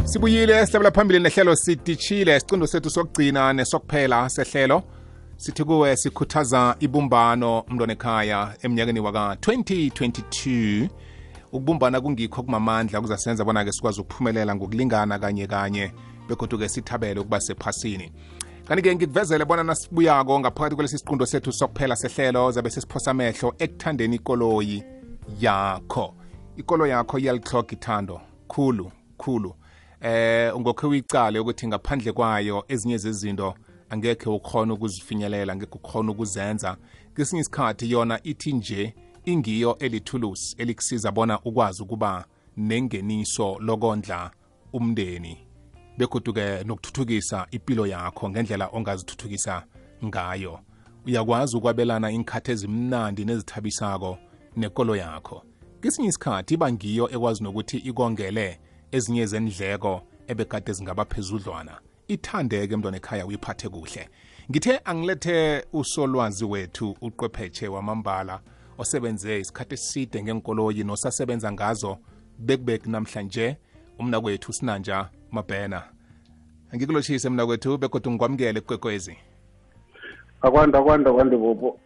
Sibuyile sihlabela phambili nehlelo sitishile isiqindo sethu sokugcina nesokuphela sehlelo sithi kuwe sikhuthaza ibumbano mntwana ekhaya eminyakeni waka 2022 ukubumbana kungikho kumamandla kuzasenza bona ke sikwazi ukuphumelela ngokulingana kanye bekodwa ke sithabele ukuba sephasini. Kanti ke ngikuvezele bona nasibuyako ngaphakathi kwelesi siqindo sethu sokuphela sehlelo zabe sesiphosa amehlo ekuthandeni ikoloyi yakho. Ikoloyi yakho iyalihlokha ithando khulu ungokhe uyicale ukuthi ngaphandle kwayo ezinye zezinto angekhe ukhona ukuzifinyelela, angekhe ukhona ukuzenza. Kesinye isikhathi yona ithi nje ingiyo elithulusi elikusiza bona ukwazi ukuba nengeniso lokondla umndeni begoduke nokuthuthukisa impilo yakho ngendlela ongazithuthukisa ngayo. Uyakwazi ukwabelana inkhathi ezimnandi nezithabisako nekolo yakho. Kesinye isikhathi iba ngiyo ekwazi nokuthi ikongele ezinye zendleko ebekade zingaba phezudlwana. Ithandeke mntwana ekhaya uyiphathe kuhle. Ngithe angilethe usolwazi wethu uqwephetshe wamambala osebenze isikhathi eside ngenkoloyi nosasebenza ngazo bekubek namhlanje umnakwethu Sinanja Mabhena. Angikulochise mnakwethu bekodwa ngikwamukele kwekwezi. Akwanda bobo.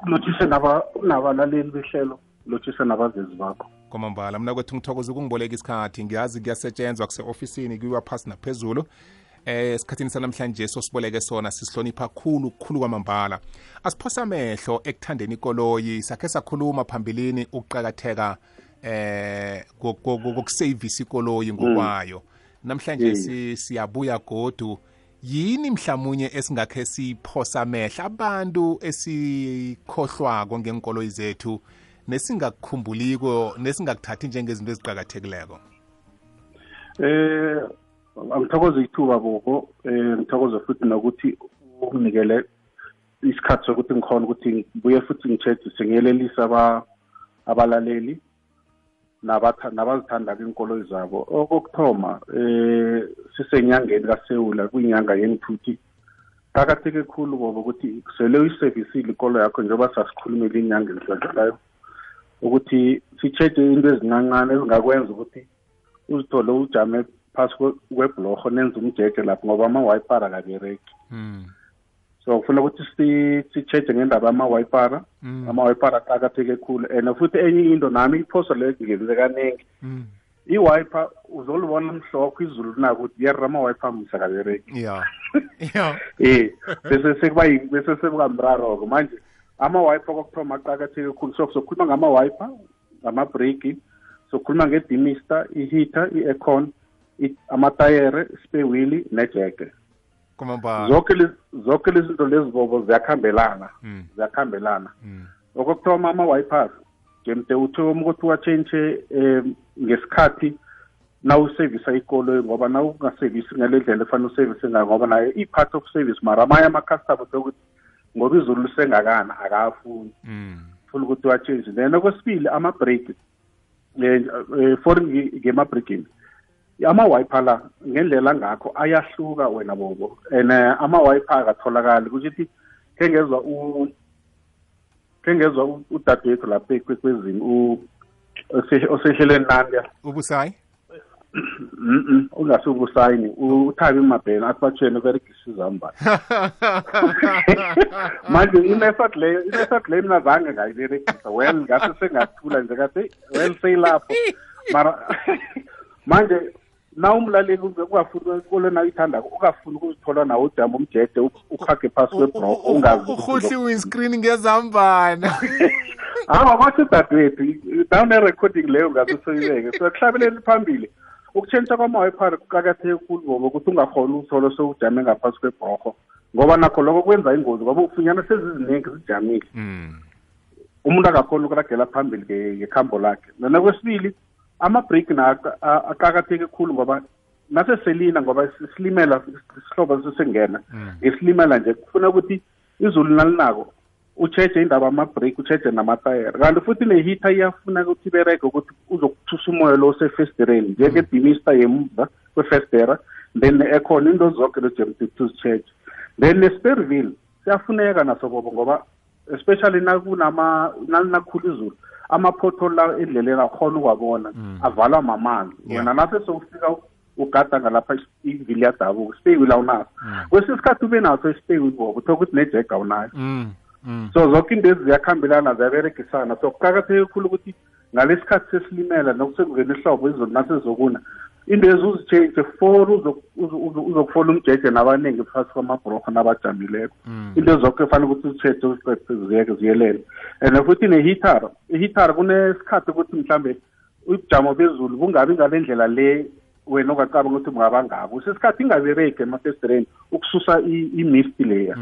Lochise nabalaleli behlelo, lochise nabazezi bakho. Kwamambala mnakwethu ngithokoza ukungiboleka isikhathi, ngiyazi kuyasetshenzwa kuse-ofisini kuyiwa phasi naphezulu. Esikhathini sanamhlanje sosiboleke sona sisihlonipha khulu kwamambala. Asiphosa amehlo ekuthandeni ikoloyi, sakhe sakhuluma phambilini ukuqakatheka kokusavisa ikoloyi ngokwayo. Namhlanje siyabuya godu yini mhlamunye esingakhe siphosa amehlo abantu esikhohlwako ngenkoloyi zethu nesingakukhumbuliko nesingakuthathi njengezinto eziqhakathekileko. Angithokoza ithuba bobo, ngithokoza futhi nokuthi unginikele isikhathi sokuthi ngikhona ukuthi ngibuye futhi ngitshedise ngiyelelisa abalaleli nabazithanda inkoloyi zabo. Okuthoma sisenyangeni kaSewula kuyinyanga yenthuthi. Qakatheke khulu bobo ukuthi sele uyiservisile ikoloyi yakho njengoba sasikhulumile inyanga endlulayo ukuthi sitshede into ezincancane ezingakwenza ukuthi uzithole ujame phasi kwebhlorho nenza umjeje lapho ngoba ama-wipara akabereki. So ufuna ukuthi sitshede ngendaba ama-wipara. Ama-wipara aqakatheke khulu and futhi enye into nami iphoso leyo ngenze kaningi. I-wiper uzolibona mhlophe izulu nako ukuthi yerra ama-wiper msa akabereki. Bese sekukamraro manje ama-wiper kokuthoma aqakatheke khulu. So sokhuluma ngama-wiper, ngama-brake, sokhuluma ngedimister, i-heater, i-aircon, amatayere, spare wheel nejeke. Zonke lezi zinto lezi bobo ziyakhambelana. Okuthoma ama-wipers ngemde uthoma ukuthi uwatshentshe ngesikhathi nawusevisa ikoloyi ngoba nawungasevisi ngale ndlela efanele usevise ngayo ngoba nayo i-part of service mara amanye ama-customer sokuthi ngoba izulu lisengakana akafuni funa ukuthi uwatshentshe. Then okwesibili ama-brake for ngema-braking ama-wiper la ngendlela ngakho ayahluka wena bobo and ama-wiper akatholakali ukuthi kengezwa udadewethu lapha ekwekwezini osehlelweni nandi ubusayi ungasubusayini uthabi Mabhena asibatshene beregisa izambane manje inesat leyo mina zange ngayiberegisa well ngase sengathula nje kathi well seyilapho mara manje na umlaleli ungafuna ikolo na ithanda ukafuna ukuzithola nawo ujama umjeje ukhage phasi kwebro ungazi ukhuhli windscreen ngezambana wathi dadewethu down recording leyo ngasosoyibeke so kuhlabeleni phambili ukutshentsha kwama-wiper kuqakatheke khulu ngoba ukuthi ungakhona ukuthola sowujame ngaphasi kwebroho ngoba nakho lokho kwenza ingozi ngoba ufunyana seziziningi zijamile umuntu akakhona ukuragela phambili ngekhambo lakhe. Nokwesibili ama-brake aqakatheke khulu ngoba naseselina ngoba silimela isihlobo sesengena isilimela nje kufuna ukuthi izulu nalinako ucheche indaba ama-brake ucheche namatayere kanti futhi ne-heater iyafuna ukuthi ibereke ukuthi uzokuthusa umoya lo osefestireni njengedimister yemuva kwefestera then ne-aircon into zonke lojemtuzitsheche then ne-spare wheel siyafuneka naso bobo ngoba especially nakunakhulu izulu ama-pothole la endleleni akhona ukwabona avalwa mamanzi wena nase sowufika ugada ngalapha ivili yadabuka ispeyi wheel awunaso kwesinye isikhathi ube naso ispeyi wheel bobo uthola ukuthi nejeg awunayo so zonke into ezi ziyakhambelana ziyaberegisana so kuqakatheke kakhulu ukuthi ngalesikhathi sesilimela nokusengena ihlobo izulu nasezokuna into ezi uzitshentshe for uzokufola umjeje nabaningi phakathi kwamabhorokho nabajamileko into zonke kufanele ukuthi uzitshentshe uziqede ziyelele and futhi ihitara kunesikhathi ukuthi mhlambe ubujamo bezulu bungabi ngale ndlela le wena ongacabanga ukuthi bungaba ngabo usesikhathi ingabereki emafestireni ukususa i-mist leya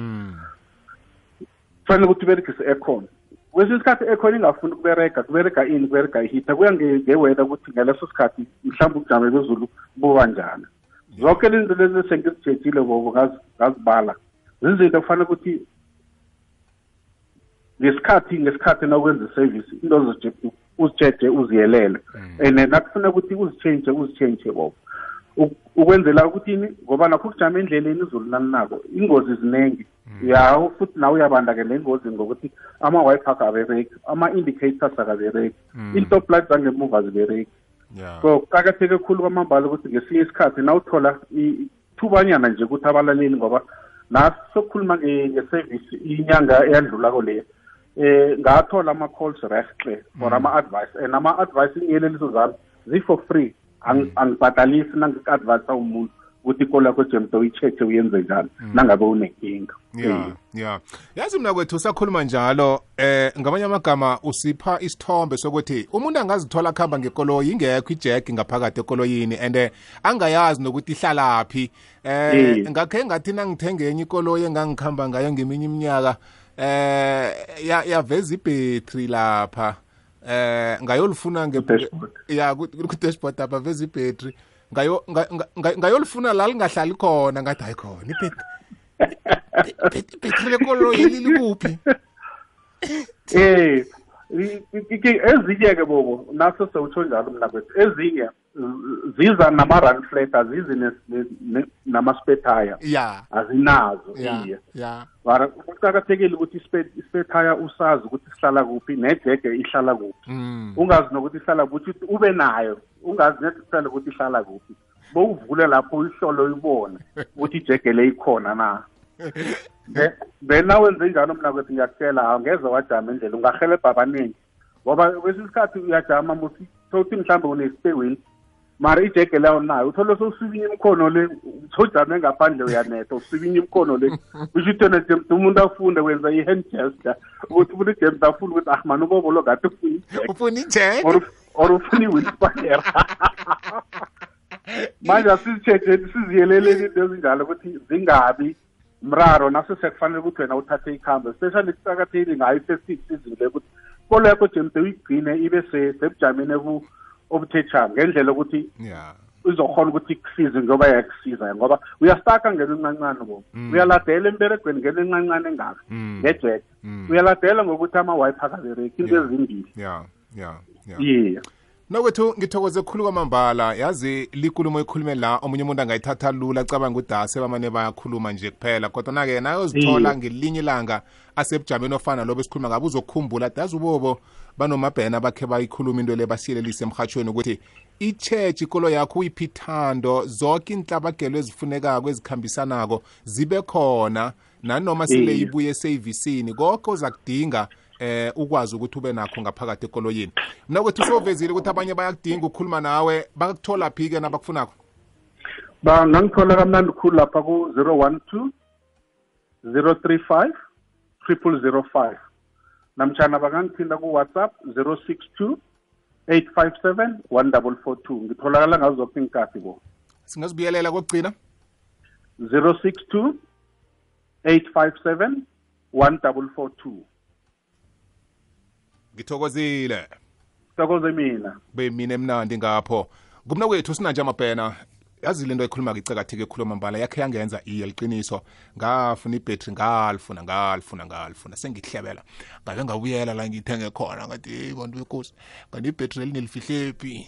kufanele ukuthi uberegise aircon kwesinye isikhathi aircon ingafuni kubereka ini kubereka ihita kuya ngeweda ukuthi ngaleso sikhathi mhlawumbe ubujamo bezulu buba njani zonke lezinto lezi sengizitshejile bobo ngazibala zizinto kufanele ukuthi ngesikhathi nakwenza iservice into uzitsheje uziyelele and nakufuna ukuthi uzitshentshe bobo ukwenzela ukuthi ngoba nakho kujama endleleni izulu nalinako ingozi zinengi futhi nawe uyabanda-ke nengozi ngokuthi ama-wiper akabereki ama-indicators akabereki i-stop light zangemuva azibereki so kuqakatheke khulu kwamambala ukuthi ngesinye isikhathi nawuthola ithubanyana nje ukuthi abalaleli ngoba nasokukhuluma nge-service inyanga eyadlulako leyo ngathola ama-calls rehle for ama-advice and ama-advice ingiyeleliso zami zi-for free angibhadalisi nangi-advise umuntu ukuthi ikolo yakho jemto uyi-check uyenze njani nangabe unenkinga yazi mina kwethu usakhuluma njalo ngamanye amagama usipha isithombe sokuthi umuntu angazithola kuhamba ngekoloyi ingekho ijeki ngaphakathi ekoloyini and angayazi nokuthi ihlalaphi ngakhe ngathi nangithenge enye ikoloyi engangihamba ngayo ngeminye iminyaka yaveza ibhetri lapha ngayolifuna ku-dashboard apha veza ibhetri ngayolifuna la lingahlali khona ngathi hayi khona ibhetri lekoloyi likuphi ezinye-ke bobo naso sewutsho njalo mna kwethu ezinye ziza nama-run flat azizi nama-spare azinazo mara kuqakathekile ukuthi i-spare tire usazi ukuthi sihlala kuphi nejege ihlala kuphi ungazi nokuthi ihlala kuphi ube nayo ungazi necessarily ukuthi ihlala kuphi bowuvule lapho uyihlolo uyibone ukuthi ijege le ikhona na then nawenze njalo mna kwethu ngiyakutshela angeze wajama endlela ungahelebha abaningi ngoba kwesinye isikhathi uyajama muthi mhlawumbe une-spare wheel mara ijege leyo nayo uthole sowusibinya imkhono le sojame ngaphandle uyanetha usibinya imkhono le usho ukuthi yona James umuntu afunde wenza i-hand gesture ukuthi umuntu James afuna ukuthi mani ubobolo ngathi ufuna ijege or ufuna i-wheelspire manje asizitsheje siziyeleleni into ezinjalo ukuthi zingabi mraro naso sekufanele ukuthi wena uthathe ikhambo especially kuqakathekile ngayo i-festive season le ukuthi ikolo yakho James uyigcine ibe sebujameni obuthetshanga ngendlela ukuthi uzokhona ukuthi kusize ngoba yakusiza ngoba uyastaka ngene encancane bo uyaladela emberegweni ngene encancane engaka ngejek uyaladela ngokuthi ama-wiper akabereki into ezimbili nokwethu ngithokoze khulu kwamambala yazi likulumo ikhulume la omunye umuntu angayithatha lula acabanga ukuthi asebamane bayakhuluma nje kuphela kodwa na-ke nayozithola ngelinye ilanga asebujameni ofana lobo esikhuluma ngabe uzokukhumbula ati yazi ubobo banomabhena bakhe bayikhuluma into le basiyelelise emhatshweni ukuthi i-church ikolo yakho uyiphi ithando zonke inhlabagelo ezifunekako ezikhambisanako zibe khona nanoma sile ibuye eseyivisini konke oza kudinga ukwazi ukuthi ube nakho ngaphakathi ekoloyini mina kwethu sovezile ukuthi abanye bayakudinga ukukhuluma nawe bakuthola phi-ke nabakufunako bangangithola kamnandi khulu lapha ku-012 035 0005 namtshana bangangithinda ku-WhatsApp 062 857 1442 ngitholakala ngazo zonke inkathi bo singazibuyelela kokugcina 062 857 1442 ngithokozile thokoze mina be mina emnandi ngapho kumna kwethu sinanje amabhena yazi lento ekhuluma ngicakatheke ekhuluma mbala yakhe yangenza iye liqiniso ngafuna ibhetri ngalifuna sengihlebela ngabe ngabuyela la ngithenge khona ngathi bantu bekosi kanti ibhetri elinelifihlephi